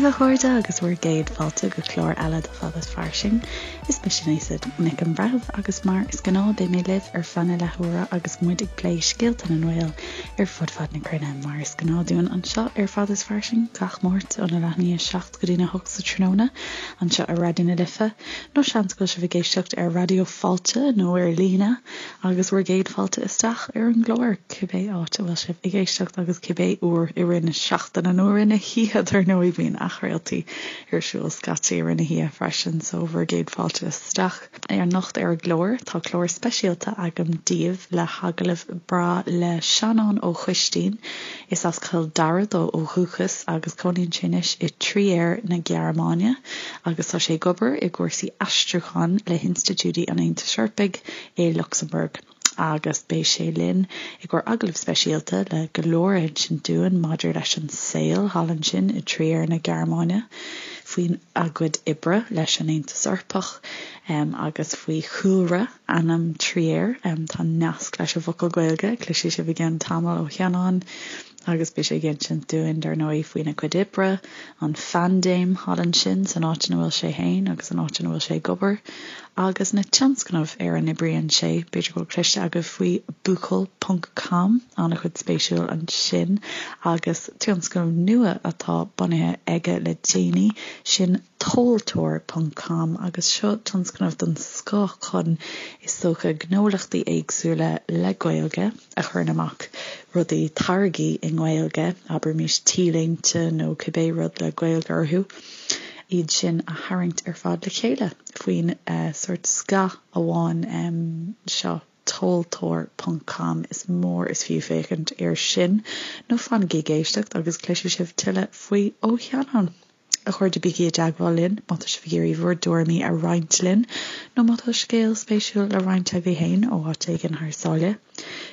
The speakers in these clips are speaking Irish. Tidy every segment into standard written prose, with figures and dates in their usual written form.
daoibh a chairde agus bhur gcéad fáilte go clár eile de Fada is Fairsing. Is mise Neasa Nic an Bhreithimh agus mar is gnáth beidh mé libh ar feadh na leathuaire agus muid ag plé scéalta na nGael ar fud fad na cruinne mar is gnáth dúinn anseo ar Fada is Fairsing gach Máirt óna leath i ndiaidh 7 go dtína 8 sa tráthnóna anseo ar Raidió na Life nó seans go bhfuil sibh ag éisteacht ar Raidió Fáilte nó ar líne agus bhur gcéad fáilte isteach ar an gclár, cibé áit a bhfuil sibh ag éisteacht agus cibé uair i rith na seachtaine nó i rith na hoíche, dar ndóigh, bíonn athchraoltaí ar siúl scaití i rith na hoíche freisin, so bhur gcéad fáilte isteach. Anocht ar an gclár, tá clár speisialta agam daoibh le hagallamh breá le Seanán Ó Coistín. Is as Cill Dara dó ó dhúchas agus cónaíonn sé anois i Trier na Gearmáine agus tá sé ag obair i gcúrsaí aistriúcháin le hinstitiúidí an Aontais Eorpaigh i Lucsamburg agus beidh sé linn i gcomhair agallamh speisialta le go leor a insint dúinn maidir leis an saol thall ansin i Trier na Gearmáine, faoina gcuid oibre leis an Aontas Eorpach agus faoi chúlra ainm Trier. Tá nasc leis an bhfocal Gaeilge, cloisfidh sibh i gceann tamaill ó Sheanán agus beidh sé ag insint dúinn, dar ndóigh, faoina chuid oibre, an phaindéim thall ansin san áit ina bhfuil sé féin agus an áit ina bhfuil sé ag obair, agus na tionscnaimh ar a n-oibríonn sé. B'fhéidir go bhfuil cloiste agaibh faoi buachaill ponc com, an-chuid spéisiúil ansin, agus tionscnamh nua atá bunaithe aige le déanaí, sin tomhaltóir ponc com, agus seo tionscnamh den scoth chun, is dócha, gnólachtaí éagsúla le Gaeilge, a chuireann amach rudaí, táirgí i nGaeilge, abraimis t-léinte nó cibé rud le Gaeilge orthu, iad sin a tharraingt ar fad le chéile faoin sórt scáth amháin seo, tomhaltóir ponc com. Is mór is fiú féachaint air sin, nó fanaigí ag éisteacht agus cloisfidh sibh tuilleadh faoi ó Sheanán. A chairde, bígí i dteagmháil linn má tá sibh ag iarraidh bhur dtuairimí a roinnt linn nó má tá scéal spéisiúil le roinnt agaibh féin ó áit éigin thar sáile.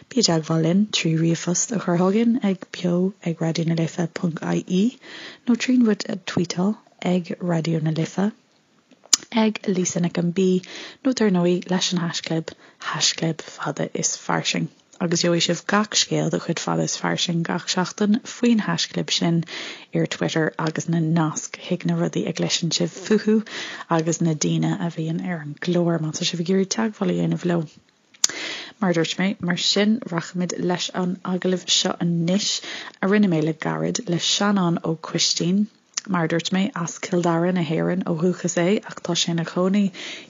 Bí i dteagmháil linn trí ríomhphost a chur chugainn ag beo ag raidionalife ponc ie nó tríd muid a tweetáil ag Raidió na Life. ag Lisa Nic an B nó dar ndóigh leis an haischlib, haischlib fada is fairsing. Agus gheobhaidh sibh gach scéal de chuid Fada is Fairsing gach seachtain faoin haischlib sin ar Twitter agus na naisc chuig na rudaí a gcloiseann sibh fúthu agus na daoine a bhíonn ar an gclár má tá sibh ag iarraidh teagmháil a dhéanamh leo. Mar a dúirt mé, mar sin, rachaimid leis an agallamh seo anois a rinne mé le gairid le Seanán Ó Coistín. Mar a dúirt mé, as Cill Dara na hÉireann ó dhúchas é ach tá sé ina chónaí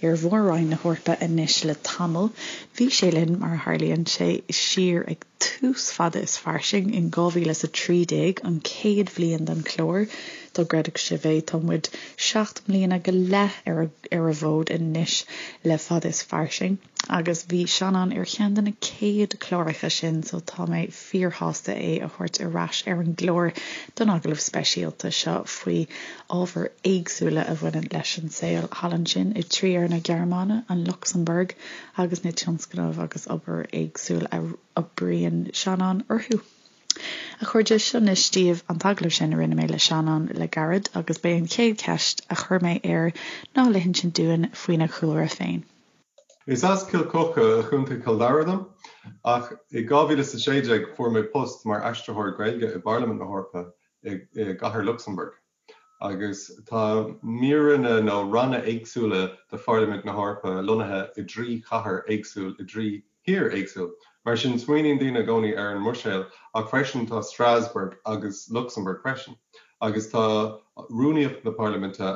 ar Mhór-Roinn na hEorpa anois le tamall. Bhí sé linn, mar a tharlaíonn sé, siar ag tús Fada is Fairsing in 2013, an chéad bhliain den chlár, dá gcreidfeadh sibh é. Tá muid 7 mbliana go leith ar ar an bhfód anois le Fada is Fairsing agus bhí Seanán ar cheann de na céad cláracha sin so tá mé fíorshásta é a thabhairt ar ais ar an gclár don agallamh speisialta seo faoi ábhair éagsúla a bhaineann leis an saol thall ansin i Trier na Gearmáine, an Lucsamburg agus na tionscnaimh agus obair éagsúil a oibríonn Seanán orthu. A chairde, seo anois daoibh an t-agallamh sin a rinne mé le Seanán le gairid agus b'é an chéad cheist a chuir mé air ná le hinsint dúinn faoina chúlra féin. Is as Cill Choca i gContae Chill Dara dom, ach i 2016 fuair mé post mar aistritheoir Gaeilge i bParlaimint na hEorpa i gcathair Lucsamburg. Agus tá míreanna nó ranna éagsúla de Pharlaimint na hEorpa lonnaithe i dtrí chathair éagsúil i dtrí thír éagsúil. Mar sin smaoiníonn daoine i gcónaí ar an mBruiséil ach freisin tá Strasbourg agus Lucsamburg freisin. Agus tá Rúnaíocht na Parlaiminte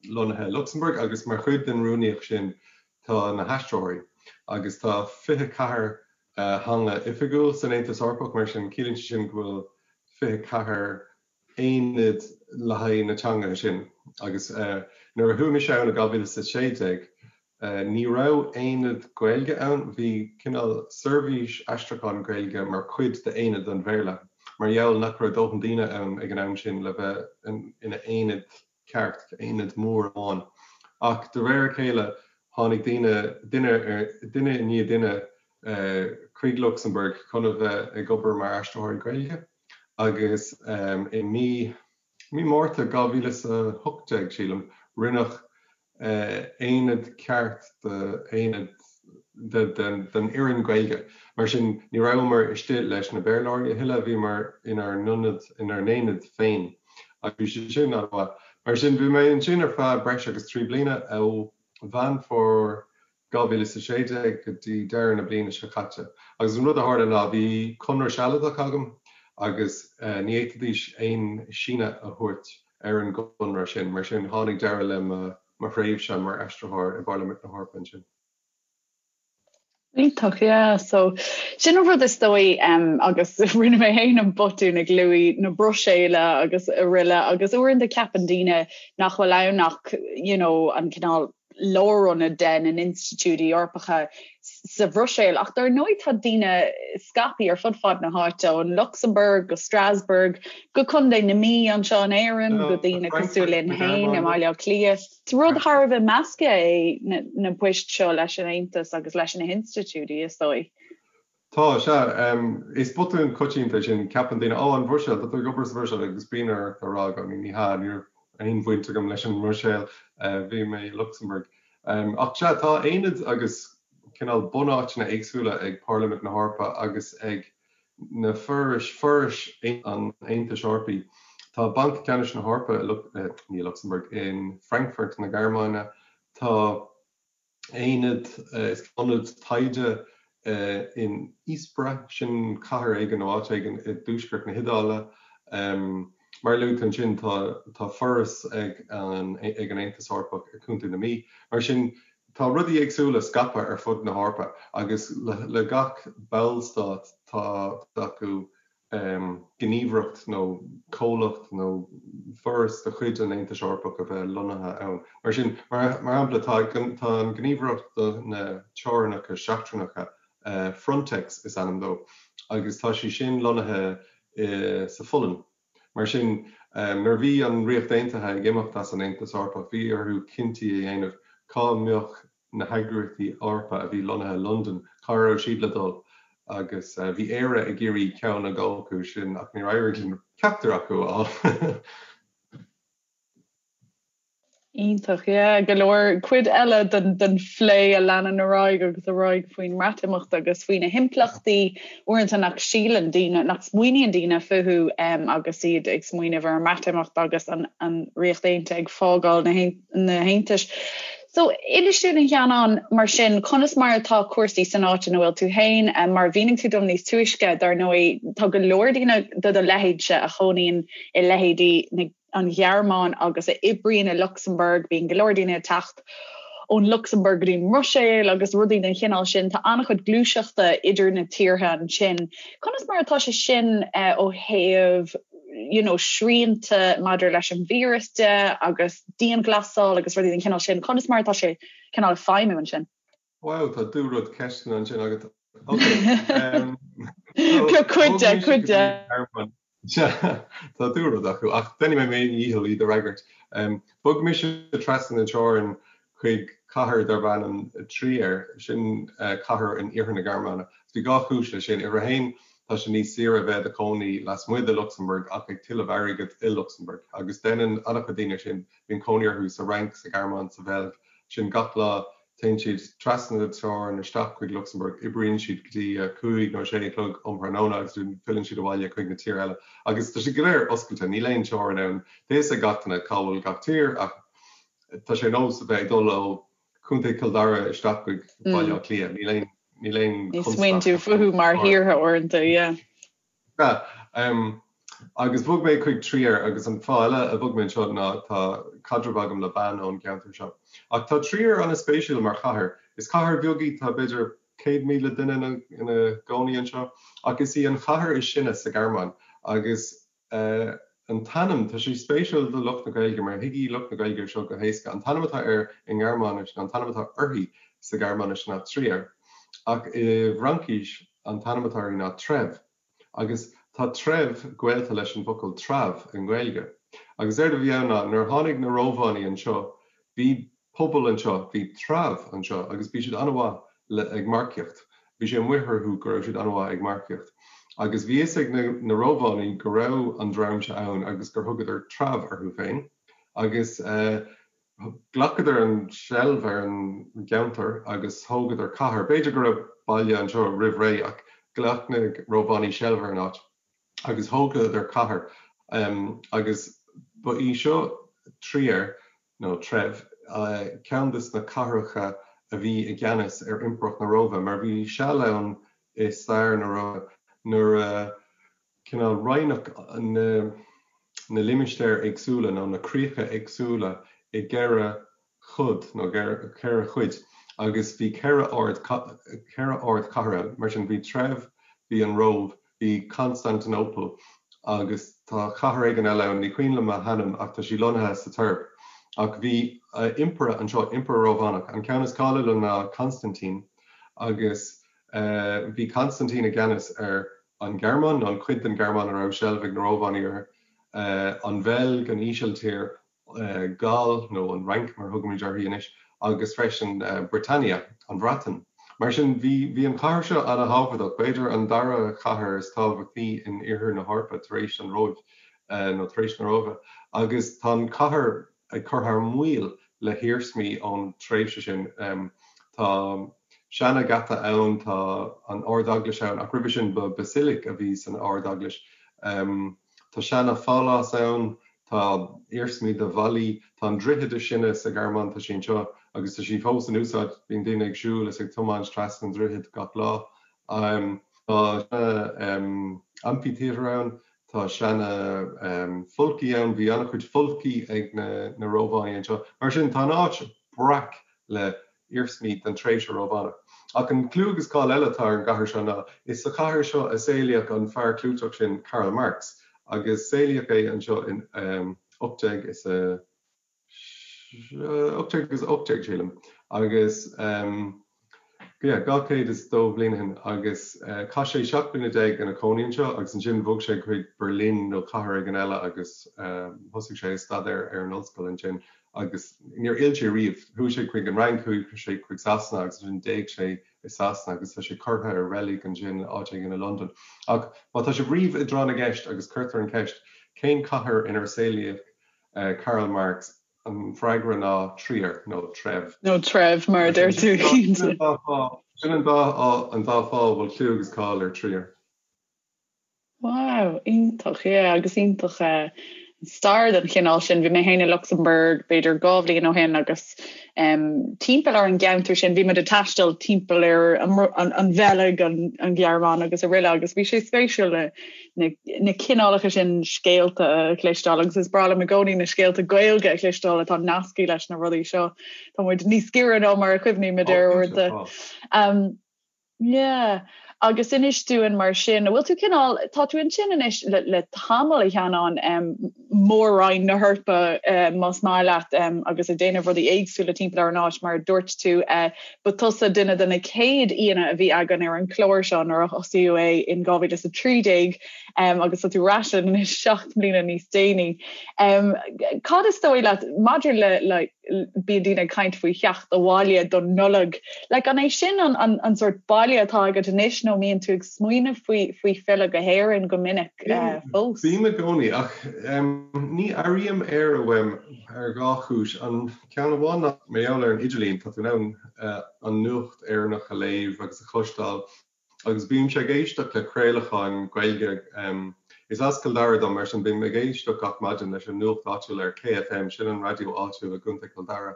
lonnaithe i Lucsamburg agus mar chuid den rúnaíocht sin tá na haistritheoirí. Agus tá 24 theanga oifigiúil san Aontas Eorpach, mar sin ciallaíonn sé sin go bhfuil 24 aonad le haghaidh na teangacha sin. Agus nuair a chuaigh mise ann i 2016, Ní raibh aonad Gaeilge ann, bhí cineál seirbhís aistriúcháin Gaeilge mar chuid d'aonad an Bhéarla, mar gheall nach raibh dóthain daoine ann ag an am sin le bheith ina aonad ceart, aonad mór amháin. Ach de réir a chéile tháinig daoine, duine ar, duine i ndiaidh duine chuig Lucsamburg chun a bheith ag obair mar aistritheoirí Gaeilge agus i mí Mí Márta 2018, sílim, rinneadh aonad ceart d'aonad den fhoireann Gaeilge. Mar sin, ní rabhamar istigh leis na Béarlóirí a thuilleadh, bhíomar inár n-ionad, inár n-aonad féin. Agus bhí sé sin an-mhaith. Mar sin, bhí mé ansin ar feadh breis agus 3 bliana, ó Mheán Fómhair 2016 go dtí deireadh na bliana seo caite. Agus an rud a tharla ná bhí conradh sealadach agam agus ní fhéadfaidís aon síneadh a thabhairt ar an gconradh sin. Mar sin, tháinig deireadh le mo thréimhse mar aistritheoir i bParlaimint na hEorpa ansin. Iontach, yeah. So, sin an rud is dóigh agus rinne mé féin an botún ag luaigh na Bruiséile agus araile agus uaireanta ceapann daoine nach bhfuil ann ach you know, an cineál lárionad de na n-institiúidí Eorpacha sa Bhruiséil ach dar ndóigh tá daoine scaipthe ar fud fad na háite, ón Lucsamburg go Strasbourg go Contae na Mí anseo in Éirinn go daoine cosúil linn féin i mBaile Átha Cliath. Is rud thar a bheith measctha é na poist seo leis an Aontas agus leis na hinstitiúidí, is dóigh. Tá, sea. Is botún coitianta é sin. Ceapann daoine, 'Ó, an Bhruiséil, tá tú ag obair sa Bhruiséil' agus bíonn ort a rá i gcónaí, 'Ní hea, ní raibh aon bhaint agam leis an mBruiséil, bhí mé i Lucsamburg'. Ach sea, tá aonaid agus cineál bunáiteanna éagsúla ag Parlaimint na hEorpa agus ag na forais, forais an Aontais Eorpaigh. Tá Banc Ceannais na hEorpa i, ní i Lucsamburg, in Frankfurt na Gearmáine. Tá. aonad, is ionad taighde in Ispra, sin cathair éigin nó áit éigin i dtuaisceart na hIodáile. Mar a luaigh tú ansin, tá tá foras ag an ag an Aontas Eorpach i Contae na Mí. Mar sin, tá rudaí éagsúla scaipthe ar fud na hEorpa agus le le gach ballstát tá acu gníomhaireacht nó comhlacht nó foras de chuid an Aontais Eorpaigh a bheith lonnaithe ann. Mar sin, mar shampla, tá an Ghníomhaireacht do na Teorainneacha Seachtracha, Frontex is ainm dó, agus tá sí sin lonnaithe sa Pholainn. Mar sin, nuair a bhí an Ríocht Aontaithe ag imeacht as an Aontas Eorpach, bhí orthu cinntí a dhéanamh cá mbeadh na heagraíochtaí Eorpacha a bhí lonnaithe i Londain, cá raibh siad le dul agus bhí Éire ag iarraidh ceann a dhó acu sin ach níor éirigh linn ceachtar acu a fháil. Iontach, yeah, go leor cuid eile den den phlé a leanann ar aghaidh agus ar aghaidh faoin mBreatimeacht agus faoi na himpleachtaí uaireanta nach síleann daoine, nach smaoiníonn daoine fúthu agus iad ag smaoineamh ar an mBreatimeacht agus an an Ríocht Aontaithe ag fágáil na na hAontais. So, inis dúinn a Sheanáin, mar sin, conas mar atá cúrsaí san áit ina bhfuil tú féin? Mar a mhínigh tú dom níos túisce, dar ndóigh, tá go leor daoine de do leithéidse a chónaíonn i leithéidí na, an Ghearmáin agus a oibríonn i Lucsamburg, bíonn go leor daoine ag teacht ón Lucsamburg go dtí an mBruiséil agus rudaí den chineál sin. Tá an-chuid gluaiseachta idir na tíortha ansin. Conas mar atá sé sin ó thaobh you know, srianta maidir leis an víreas de agus dianghlasáil agus rudaí den chineál sin, conas mar atá sé cineál ag feidhmiú ansin? Wow, tá dúrud ceisteanna ansin agat. Ok. Cuid de, cuid de. Tá dúrud acu, ach déanfaidh mé mo dhícheall iad a fhreagairt. Bhog mise trasna na teorann chuig cathair darb ainm Trier, sin cathair in iarthar na Gearmáine. Bhí dhá chúis leis sin. Uimhir a haon, tá sé níos saoire a bheith i do chónaí lasmuigh de Lucsamburg ach ag tuilleamh airgid i Lucsamburg. Agus déanann an-chuid daoine sin, bíonn cónaí orthu sa Fhrainc, sa Ghearmáin, sa Bheilg, sin gach lá téann siad trasna na teorann isteach chuig Lucsamburg, oibríonn siad go dtí a cúig nó a sé a chlog um thráthnóna agus filleann siad abhaile chuig na tír eile. Agus tá sé go léir oscailte, níl aon teorainn ann. Tá a fhios ag gach duine cá bhfuil gach tír ach tá sé ar nós a bheith ag dul ó Chontae Chill Dara isteach chuig Baile Átha Cliath. Níl aon níl aon Ní smaoiníonn tú fúthu mar thíortha uaireanta, yeah. Yeah. Agus bhog mé chuig Trier agus an fáth eile a bhog mé anseo ná tá caidreamh agam le bean ón gceantar seo. Ach tá Trier an-spéisiúil mar chathair. Is cathair bheag í, tá b'fhéidir 100,000 duine ina gcónaí anseo, ach is í an chathair is sine sa Ghearmáin agus An t-ainm, tá sé spéisiúil do lucht na Gaeilge mar thuigfidh lucht na Gaeilge seo go héasca. An t-ainm atá air i nGearmáinis nó an t-ainm atá uirthi sa Ghearmáinis ná Trier, ach i bhFraincis an t-ainm atá uirthi ná Trèves. Agus tá Trèves gaolta leis an bhfocal treabh i nGaeilge. Agus éard a bhí ann ná nuair a tháinig na Rómhánaigh anseo, bhí pobal anseo, bhí treabh anseo agus bhí siad an-mhaith le ag marcaíocht. Bhí sé amuigh orthu go raibh siad an-mhaith ag marcaíocht. Agus bhí fhios ag na na Rómhánaigh go raibh an dream seo ann agus gur thugadar treabh orthu féin. Agus ghlacadar an seilbh ar an gceantar agus thógadar cathair. B'fhéidir go raibh baile anseo roimh ré ach ghlac na Rómhánaigh seilbh ar an áit. agus thógadar cathair agus. Ba í seo Trier, nó Treibh, ceann de na cathracha a bhí i gceannas ar Impireacht na Róimhe, mar bhí seal ann i stair na Róimhe nuair a cineál roinneadh na limistéir éagsúla nó na críocha éagsúla i gceithre chod nó 4 chuid agus bhí 4 ard 4 ardchathair, mar sin bhí Treibh, bhí an Róimh, bhí Constantinople agus tá cathair éigin eile ann, ní cuimhin liom a hainm ach tá sí lonnaithe sa Tuirc. Ach bhí impire anseo, impire Rómhánach, an ceann is cáiliúla ná Constantine agus bhí Constantine i gceannas ar an Ghearmáin, nó an chuid den Ghearmáin a raibh seilbh ag na Rómhánaigh uirthi, an Bheilg, an Ísiltír, Gall, nó an Fhrainc mar a thugaimid uirthi anois, agus freisin Britannia, an Bhreatain. Mar sin, bhí bhí an chathair seo ana-thábhachtach, b'fhéidir an dara chathair is tábhachtaí in iarthar na hEorpa tar éis an Róimh, nó tar éis na Róimhe, agus tá an chathair ag cur thar maoil le hiarsmaí ón tréimhse sin. Tá seana-gheata ann, tá an Ard-Eaglais ann, ach roimhe sin ba basilic a bhí san Ard-Eaglais. Tá seana-phálás ann, tá iarsmaí de bhallaí, tá an droichead is sine sa Ghearmáin, tá sí anseo agus tá sí fós in úsáid, bíonn daoine ag siúl is ag tiomáint trasna an droichid gach lá. Tá seana amphitheatre ann, tá seana folcaí ann, bhí an-chuid folcaí ag na Rómhánaigh anseo. Mar sin, tá an áit breac le iarsmaí den tréimhse Rómhánach. Ach an clú agus cáil eile atá ar an gcathair seo ná is sa chathair seo a saolaíodh an fear clúiteach sin Karl Marx agus saolaíodh é anseo in 18 is a 1818 sílim agus yeah 202 bhliain ó shin agus chaith sé 17 bliana ina chónaí anseo agus ansin bhog sé chuig Berlin nó cathair éigin eile agus thosaigh sé ag staidéar ar an ollscoil ansin agus níor fhill sé riamh. Chuaigh sé chuig an Fhrainc, chuaigh sé chuig Sasana agus ansin d'éag sé i Sasana agus tá sé curtha i reilig ansin áit éigin i Londain. Ach má tá sibh riamh i dtráth na gceist agus cuirtear an cheist cén cathair inar saolaíodh Karl Marx, an freagra ná Trier nó Treibh. Nó Treibh mar a deir tú. Sin an dá fáth a bhfuil clú agus cáil ar Trier. Wow, iontach, yeah, agus iontach eh, stair den chineál sin. Bhí mé féin i Lucsamburg b'fhéidir 2 bhliain ó shin agus um, timpeall ar an gceantar sin bhí muid ag taisteal timpeall ar an, an, an Bheilg, an, an Ghearmáin agus araile agus bhí sé spéisiúil na, na, na cineálacha sin scéalta a chloisteáil agus is breá liom i gcónaí na scéalta Gaeilge a chloisteáil atá nasctha leis na rudaí seo. Tá muid níos giorra ná mar a chuimhnímid air uaireanta. Um, Yeah. Agus inis dúinn mar sin, an bhfuil tú cineál, tá tú ansin anois le, le tamall a Sheanáin, um, mór-roinn na hEorpa uh, más maith leat um, agus ag déanamh rudaí éagsúla timpeall ar an áit mar a dúirt tú, uh, ba tusa duine de na céad aíonna a bhí againn ar an chlár seo nuair a thosaíodh é in 2013 um, agus tá tú ar ais linn anois 7 mbliana níos déanaí. Um, cad is dóigh leat maidir le, le bíonn daoine ag caint faoi theacht abhaile don Nollaig. Like, an é sin an, an, an sort baile atá agat anois nó mbíonn tú ag smaoineamh faoi, faoi filleadh go hÉirinn go minic uh, fós? Bím i gcónaí ach um, ní airím Éire uaim ar dhá chúis. An ceann amháin ná mar gheall ar an idirlíon, tá tú in ann uh, an nuacht Éireannach a léamh agus a chloisteáil Agus bímse ag éisteacht le craolacháin Gaeilge. Is as Cill Dara dom, mar sin bím ag éisteacht gach maidin leis an nuacht áitiúil ar KFM, sin an raidió áitiúil i gContae Chill Dara,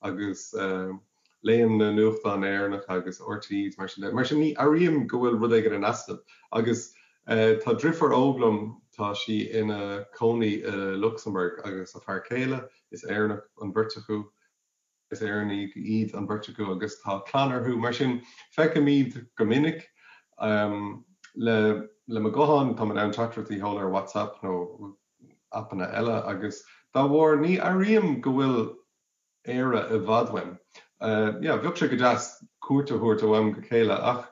agus léim na nuachtáin Éireannacha agus RTÉ is mar sin de. Mar sin ní airím go bhfuil rud éigin in easnamh. Agus tá driofúr óg liom, tá sí ina cónaí i Lucsamburg agus a fear céile, is Éireannach an bheirt acu. Is Éireannaigh iad an bheirt acu agus tá clann orthu, mar sin feicim iad go minic. Le le mo ghuthán, táim in ann teachtaireachtaí a sheoladh ar WhatsApp nó aipeanna eile agus dá bharr ní airím go bhfuil Éire i bhfad uaim. Yeah, bheadh sé go deas cuairt a thabhairt ó am go chéile ach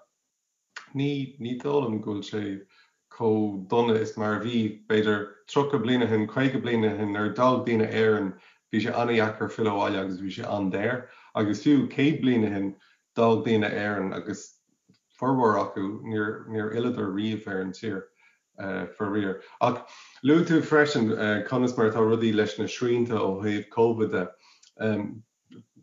Ní, ní dóigh liom go bhfuil sé chomh dona is mar a bhí, b'fhéidir, 30 bliain ó shin, 50 bliain ó shin, nuair a d'fhág daoine Éirinn, bhí sé an-dheacair filleadh abhaile agus bhí sé an-daor. Agus fiú 100 bliain ó shin, d'fhág daoine Éirinn agus formhór acu, níor, níor fhilleadar riamh ar an tír, faraor. Ach luaigh tú freisin conas mar atá rudaí leis na srianta ó thaobh Covid de.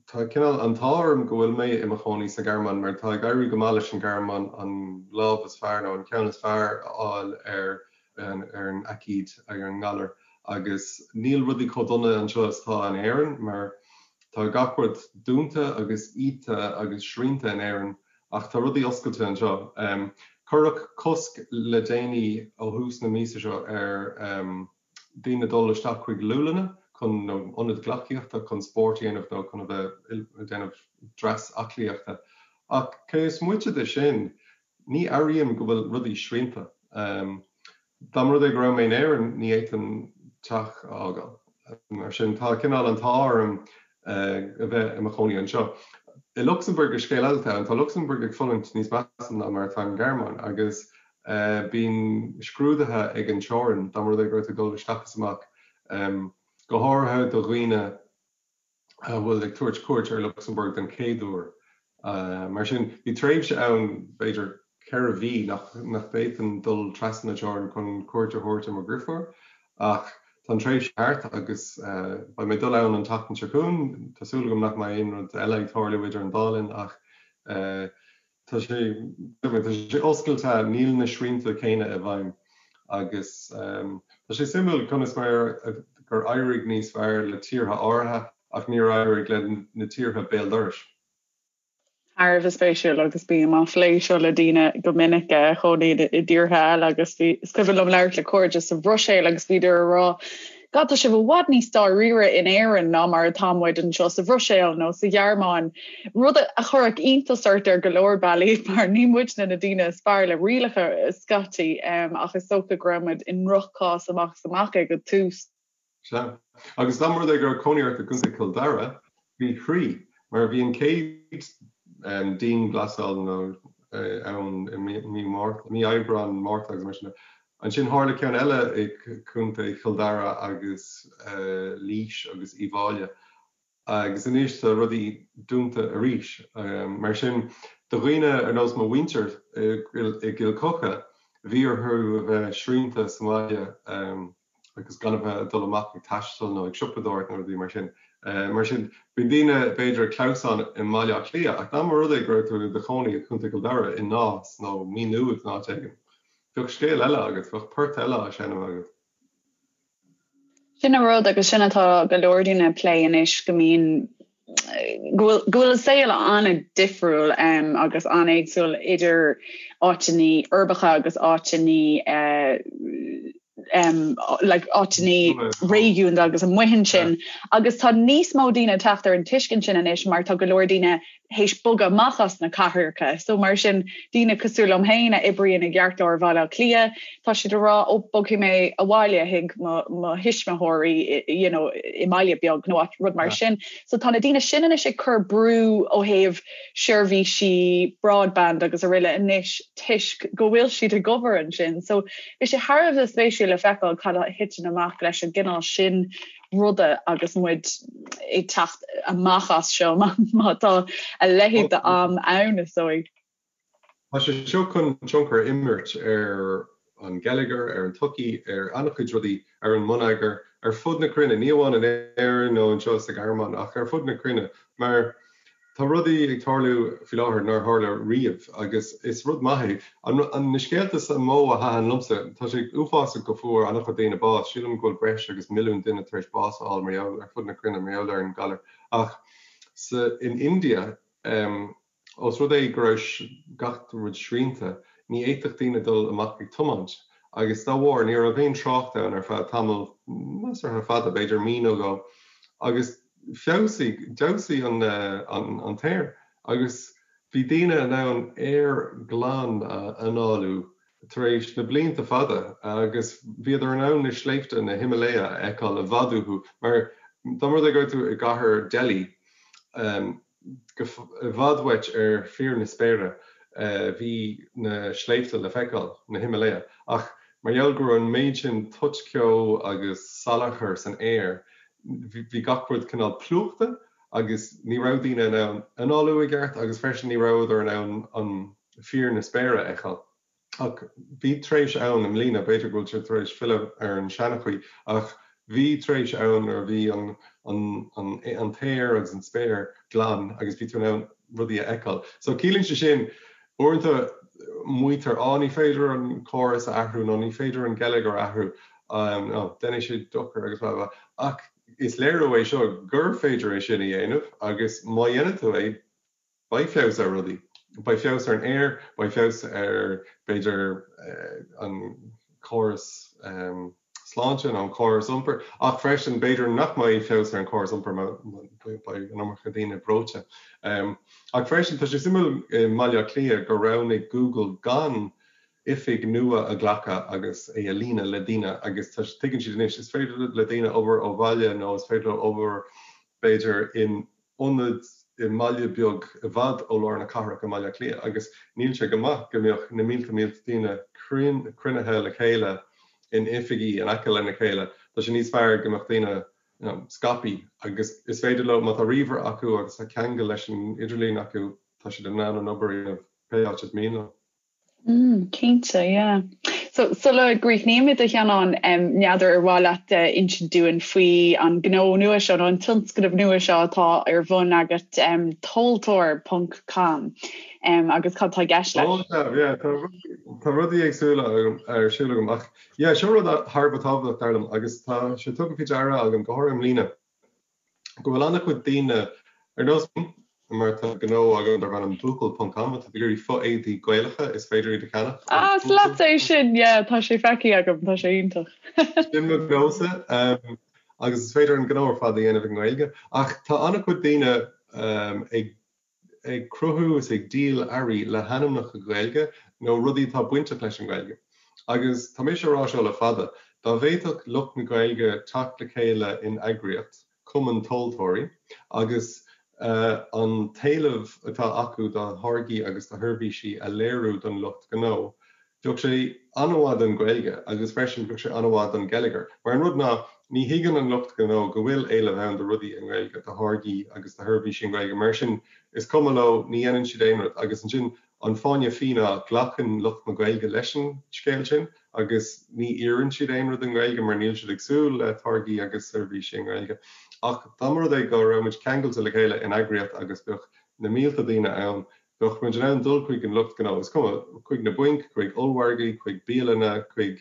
Tá cineál an t-ádh orm go bhfuil mé i mo chónaí sa Ghearmáin mar tá ag éirí go maith leis an Ghearmáin an lámh is fearr nó an ceann is fearr a fháil ar an ar an aicíd, ar an ngalar. Agus níl rudaí chomh dona anseo is atá in Éirinn mar tá gach rud dúnta agus iata agus srianta in Éirinn ach tá rudaí oscailte anseo. Cuireadh cosc le déanaí ó thús na míosa seo ar daoine dul isteach chuig liúlanna chun nó ionaid gleacaíochta chun spórt a dhéanamh nó chun a bheith ag déanamh dreas aclaíochta. Ach cé is moite de sin, ní airím go bhfuil rudaí srianta. Dá mba rud é go raibh mé in Éirinn, ní fhéadfainn teach a fhágáil. Mar sin, tá cineál an t-ádh orm a bheith i mo chónaí anseo. I Lucsamburg is scéal eile atá ann. Tá Lucsamburg ag fulaingt níos measa ná mar atá an Ghearmáin agus bíonn scrúduithe ag an teorainn dá mba rud é go raibh tú ag dul isteach is amach, go háirithe do dhaoine a bhfuil ag tabhairt cuairt ar Lucsamburg den chéad uair. Mar sin, bhí tréimhse ann, b'fhéidir 4 mhí, nach bhféadfainn dul trasna na teorann chun cuairt a thabhairt ar mo dheirfiúr, ach tá an tréimhse thart agus beidh mé ag dul ann an tseachtain seo chugainn. Tá súil agam nach mbeidh aon rud eile ag tarlú idir an dá linn ach tá sé, tá sé oscailte, níl na srianta céanna i bhfeidhm agus tá sé suimiúil conas mar gur éirigh níos fearr le tíortha áirithe ach níor éirigh le na tíortha béal dorais. Thar a bheith spéisiúil agus bím á phlé seo le daoine go minic a chónaíonn i dtíortha eile agus bhí, is cuimhin liom labhairt le cairde sa Bhruiséil agus bhíodar ag rá God tá sibh i bhfad níos dáiríre in Éirinn ná mar atá muid anseo sa Bhruiséil nó sa Ghearmáin. Rud a chuirfeadh iontas ort ar go leor bealaí mar ní muidne na daoine is fearr le rialacha scaití ach is dócha go raibh muid i ndroch-chás amach is amach ag an tús. Sea. Agus dá mba rud é go raibh cónaí ort i gContae Chill Dara, bhí thrí, mar bhí an chéad dianghlasáil nó ann i mí Márta, mí Aibreán, Márta agus mar sin de. Ansin tharla ceann eile i gContae Chill Dara agus Laois agus Uíbh Fhailí. Agus anois tá rudaí dúnta arís. Mar sin, do dhaoine ar nós mo mhuintir i gCill Choca, bhí orthu a bheith srianta sa mbaile agus gan a bheith ag dul amach ag taisteal nó ag siopadóireacht nó rudaí mar sin. Mar sin, bíonn daoine b'fhéidir ag clamhsán i mBaile Átha Cliath ach dá mba rud é go raibh tú i do chónaí i gContae Chill Dara, i Nás nó Maigh Nuad nó áit éigin, bheadh scéal eile agat, bheadh port eile á seinm agat. Sin an rud agus sin atá go leor daoine ag plé anois go mbíonn go bhfuil go bhfuil an saol an-difriúil agus an-éagsúil idir áiteanna uirbeacha agus áiteanna like áiteanna réigiúnda agus amuigh ansin agus tá níos mó daoine ag teacht ar an tuiscint sin anois mar tá go leor daoine théis bogadh amach as na cathracha. So mar sin daoine cosúil liom féin a oibríonn i gceartlár Bhaile Átha Cliath, tá siad ag rá ó bogfaidh mé abhaile chuig mo mo thuismitheoirí you know i mbaile beag nó rud mar sin. So tá na daoine sin anois ag cur brú ó thaobh seirbhísí broadband agus araile anois toisc go bhfuil siad ag obair ansin. So bhí sé thar a bheith spéisiúil le feiceáil cad a thiteann amach leis an gcineál sin ruda agus muid ag teacht amach as seo má tá a leithéid d'am ann is dóigh. Tá sé seo chun tionchar a imirt ar an ngeilleagar, ar an tsochaí, ar an-chuid rudaí, ar an mbonneagar, ar fud na cruinne, ní amháin in Éirinn nó anseo sa Ghearmáin ach ar fud na cruinne, mar tá rudaí ag tarlú faoi láthair nár tharla riamh agus is rud maith é. Na scéalta is mó a thaitin liomsa, tá sé uafásach go fuair an-chuid daoine bás, sílim go bhfuil breis agus milliún duine tar éis bás a fháil mar gheall, ar fud na cruinne mar gheall ar an galar ach sa, in India, Ós rud é go raibh gach rud srianta, ní fhéadfadh daoine dul amach ag tiomáint, agus dá bharr ní raibh aon trácht ann ar feadh tamall measartha fada, b'fhéidir mí nó dhó, agus feabhsaigh, d'fheabhsaigh an t-aer, agus bhí daoine in ann aer glan a análú tar éis na blianta fada, agus bhíodar in ann na sléibhte, na Himalaya, a fheiceáil i bhfad uathu, mar dá mba rud é go raibh tú i gcathair Delhi, go i bhfad uait ar fíor na spéire bhí na sléibhte le feiceáil, na Himalaya, ach mar gheall go raibh an méid sin toitcheo agus salachar san aer, bhí gach rud cineál plúchta agus ní raibh daoine in ann análú i gceart agus freisin ní rabhadar in ann an fíor na spéire a fheiceáil. Ach bhí tréimhse ann i mbliana, b'fhéidir go bhfuil sé tar éis filleadh ar an seanchaoi, ach bhí tréimhse ann nuair a bhí an t-aer agus an spéir glan agus bhí tú in ann rudaí a fheiceáil. So ciallaíonn sé sin, uaireanta maítear, á ní féidir an córas a athrú nó ní féidir an geilleagar a athrú. nó déanfaidh sé dochar agus blah blah ach is léiriú é seo gur féidir é sin a dhéanamh agus má dhéanann tú é beidh feabhas ar rudaí. Beidh feabhas ar an aer, beidh feabhas ar b'fhéidir an córas sláinte nó an córas iompair ach freisin b'fhéidir nach mbeidh feabhas ar an chóras iompair má beidh an iomarca daoine breoite. Ach freisin tá sé suimiúil i mBaile Átha Cliath gur roghnaigh Google gan oifig nua a ghlacadh agus é a líonadh le daoine agus tá tuigeann siad anois is féidir le daoine obair ó bhaile nó is féidir leo obair b'fhéidir in ionad i mbaile beag i bhfad ó lár na cathrach i mBaile Átha Cliath agus níl sé go maith go mbeadh na mílte mílte daoine cruinnithe le chéile in oifigí in aice lena chéile. Tá sé níos fearr go mbeadh daoine you know scaipthe agus is féidir leo, má tá ríomhaire acu agus tá ceangal leis an idirlíon acu, tá siad in ann an obair a dhéanamh pé áit is mian leo. Mm, cinnte, yeah. So, sula gcríochnaímid a Sheanáin, n'fheadar ar mhaith leat insint dúinn faoi an gnó nua seo nó an tionscnamh nua seo atá ar bun agat, tomhaltóir ponc com, agus cad tá i gceist leis? Oh, yeah, yeah, tá tá rudaí éagsúla agam ar siúl agam ach yeah, seo rud thar a bheith tábhachtach dar liom agus tá sé tugtha faoi deara agam go háirithe i mbliana. go bhfuil an-chuid daoine, ar nós mar tá gnó agam darb ainm Buachaill ponc com atá ag iarraidh fo-éadaí Gaelacha is féidir iad a cheannach ó Ah, is leatsa é sin, yeah, tá sé feicthe agam, tá sé iontach. Sin mo ghnósa agus is féidir an gnó ar fad a dhéanamh i nGaeilge ach tá an-chuid daoine ag ag cruthú is ag díol earraí le hainmneacha Gaeilge nó rudaí atá bainteach leis an nGaeilge. Agus tá mise a rá seo le fada, dá bhféadfadh lucht na Gaeilge teacht le chéile in eagraíocht, cumann tomhaltóirí, agus an t-éileamh atá acu do tháirgí agus do sheirbhísí a léiriú don lucht gnó, Bheadh sé an-mhaith don Ghaeilge agus freisin bheadh sé an-mhaith don gheilleagar. Mar an rud ná, ní thuigeann an lucht gnó go bhfuil éileamh ann do rudaí i nGaeilge, do tháirgí agus do sheirbhísí i nGaeilge. Mar sin, is cuma leo, ní dhéanann siad aon rud. Agus ansin, an fáinne fí ná, glacann lucht na Gaeilge leis an scéal sin agus ní iarrann siad aon rud i nGaeilge mar níl siad ag súil le táirgí agus seirbhísí i nGaeilge. Ach dá mba rud é go raibh muid ceangailte le chéile in eagraíocht agus bheadh na mílte daoine ann, Bheadh muid in ann dul chuig an lucht gnó, is cuma, chuig na bainc, chuig ollmhargaí, chuig bialanna, chuig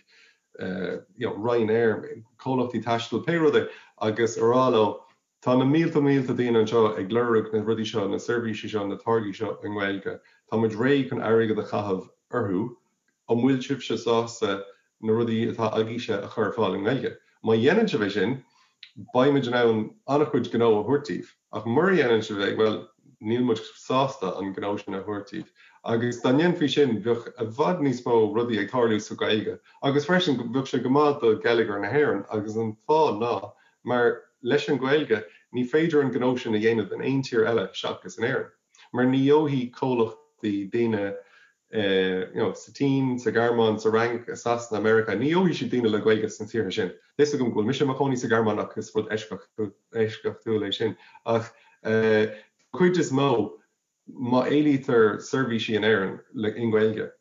you know Ryanair, comhlachtaí taistil, pé rud é, agus a rá leo, tá na mílte mílte daoine anseo ag lorg na rudaí seo, na seirbhísí seo, na táirgí seo i nGaeilge, tá muid réidh chun airgead a chaitheamh orthu, an bhfuil sibhse sásta na rudaí atá agaibhse a chur ar fáil i nGaeilge? Má dhéanann sibh é sin, beidh muid in ann an-chuid gnó a thabhairt daoibh. Ach mura dhéanann sibh é, bhuel, níl muid sásta an gnó sin a thabhairt daoibh. Agus dá ndéanfaí sin, bheadh i bhfad níos mó rudaí ag tarlú sa Ghaeilge. Agus freisin, bheadh sé go maith do gheilleagar na hÉireann. Agus an fáth ná mar leis an Ghaeilge, ní féidir an gnó sin a dhéanamh in aon tír eile seachas in Éirinn. Mar ní gheobhaidh comhlachtaí daoine you know, sa tSín, sa Ghearmáin, sa Fhrainc, i Sasana, Meiriceá, ní gheobhaidh siad daoine le Gaeilge sna tíortha sin. Tá fhios agam go bhfuil mise i mo chónaí sa Ghearmáin ach is rud eisceachtúil é sin. Ach den chuid is mó, má éilítear seirbhísí in Éirinn i nGaeilge,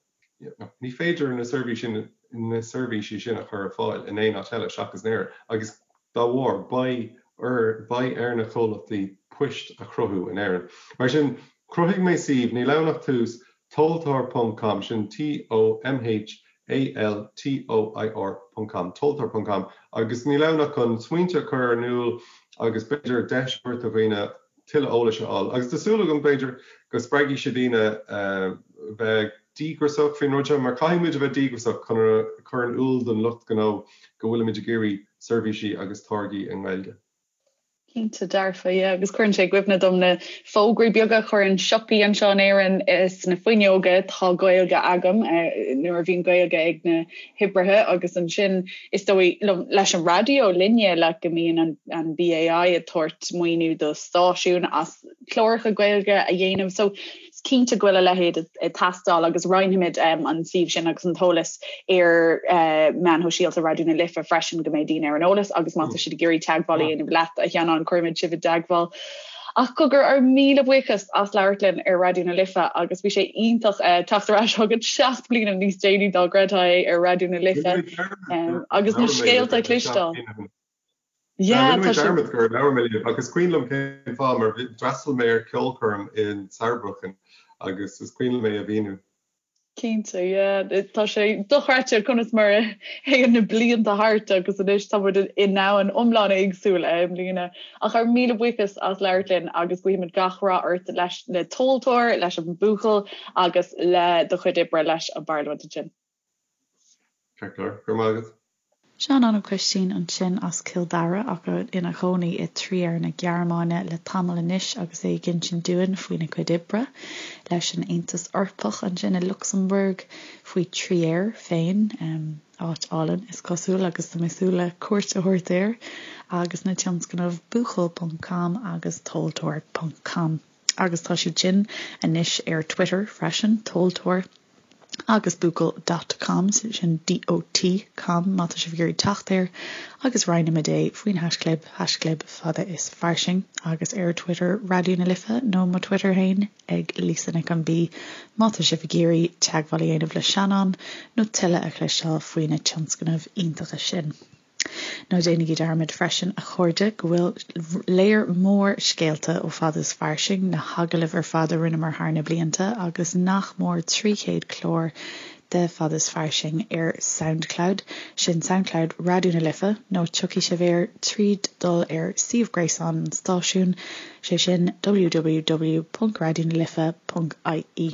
ní féidir na seirbhísí na seirbhísí sin a chur ar fáil in aon áit eile seachas in Éirinn agus dá bharr beidh ar beidh ar na comhlachtaí poist a chruthú in Éirinn. Mar sin, Chruthaigh mé suíomh, níl ann ach tús, tomhaltóir ponc com, sin T-O-M-H-A-L-T-O-I-R ponc com, tomhaltóir ponc com, agus níl ann ach chun smaointe a chur in iúl agus b'fhéidir deis a thabhairt do dhaoine tuilleadh eolais a fháil. Agus tá súil agam, b'fhéidir, go spreagfaidh sé daoine bheith díograiseach faoin rud seo, mar caithfidh muid a bheith díograiseach chun a chur in iúl don lucht gnó go bhfuilimid ag iarraidh seirbhísí agus táirgí i nGaeilge. Cinnte dearfa, yeah, agus cuireann sé i gcuimhne dom na fógraí beaga a chuireann siopaí anseo in Éirinn sna fuinneoga, tá Gaeilge agam, nuair a bhíonn Gaeilge ag na hoibrithe agus ansin is dóigh liom leis an raidió linne like go mbíonn an, an BAI ag tabhairt maoiniú do stáisiúin as cláracha Gaeilge a dhéanamh. So Is cinnte go bhfuil a leithéid ag teastáil agus roinnfimid an suíomh sin agus an t-eolas ar meáin shóisialta Raidió na Life freisin go mbeidh daoine ar an eolas agus má tá siad ag iarraidh teagmháil a dhéanamh leat a Sheanáin cuirfimid sibh i dteagmháil. Ach cogar ár míle buíochas as labhairt linn ar Raidió na Life agus bhí sé iontach teacht ar ais chugat 7 bliana níos déanaí dá gcreidfeá é ar Raidió na Life agus na scéalta a chloisteáil. Yeah, Rinne mé dearmad gur labhair mé libh agus is cuimhin liom cén fáth mar d'fhreastail mé ar ceolchoirm in Saarbrücken agus is cuimhin liom é a mhíniú. Cinnte, yeah. Tá sé dochreidte conas mar a théann na blianta thart agus anois tá muid i ndomhan iomlán éagsúil i mbliana. Ach ár míle buíochas as labhairt linn agus guímid gach rath ort leis le Tomhaltóir, leis an Buachaill agus le do chuid oibre leis an bParlaimint ansin. Ceart go leor. Go raibh maith agat. Seanán Ó Coistín ansin as Cill Dara ach ina chónaí i Trier na Gearmáine le tamall anois agus é ag insint dúinn faoina chuid oibre leis an Aontas Eorpach ansin i Lucsamburg, faoi Trier féin, áit álainn is cosúil agus tá mé ag súil le cuairt a thabhairt air, agus na tionscnaimh Buachaill ponc com agus Tomhaltóir ponc com. Agus tá siad sin anois ar Twitter freisin, Tomhaltóir. agus buachaill dot com, sin DOT com má tá sibh ag iarraidh teacht air, agus roinnimid é faoin haischlib, haischlib fada is fairsing, agus ar Twitter Raidió na Life nó mo Twitter féin ag Lisa Nic an B má tá sibh ag iarraidh teagmháil a dhéanamh le Seanán nó tuilleadh a chloisteáil faoi na tionscnaimh iontacha sin. Ná déanaigí dearmad freisin, a chairde, go bhfuil léar mór scéalta ó Fada is Fairsing, na hagallaimh ar fad a rinneamar thar na blianta agus nach mór 300 clár de Fada is Fairsing ar Soundcloud, sin Soundcloud Raidió na Life, nó tiocfaidh sibh air tríd dul ar suíomh gréasáin an stáisiúin, sé sin www.raidionalife.ie.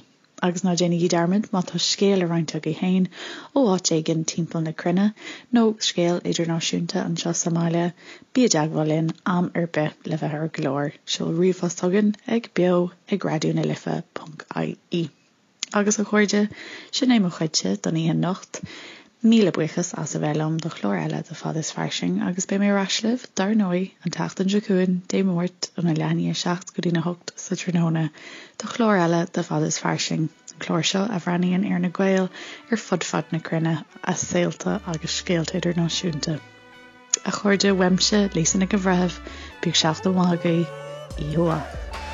Agus ná déanaigí dearmad, má tá scéal le roinnt agaibh féin ó áit éigin timpeall na cruinne, nó scéal idirnáisiúnta anseo sa mbaile, bí i dteagmháil linn am ar bith le bheith ar an gclár. Seol ríomhphost chugainn ag beo ag raidionalife ponc ie. Agus a chairde, sin é mo chuidse don oíche anocht. Míle buíochas as a bheith liom do chlár eile de Fada is Fairsing agus beidh mé ar ais libh, dar ndóigh, an tseachtain seo chugainn, Dé Máirt, óna leath i ndiaidh a 7 go dtína 8 sa tráthnóna, do chlár eile de Fada is Fairsing, an clár seo a bhreathnaíonn ar na Gaeil ar fud fad na cruinne, a saolta agus scéalta idirnáisiúnta. A chairde, uaimse, Lisa Nic an Bhreithimh, bíodh seachtain mhaith agaibh, oíche mhaith.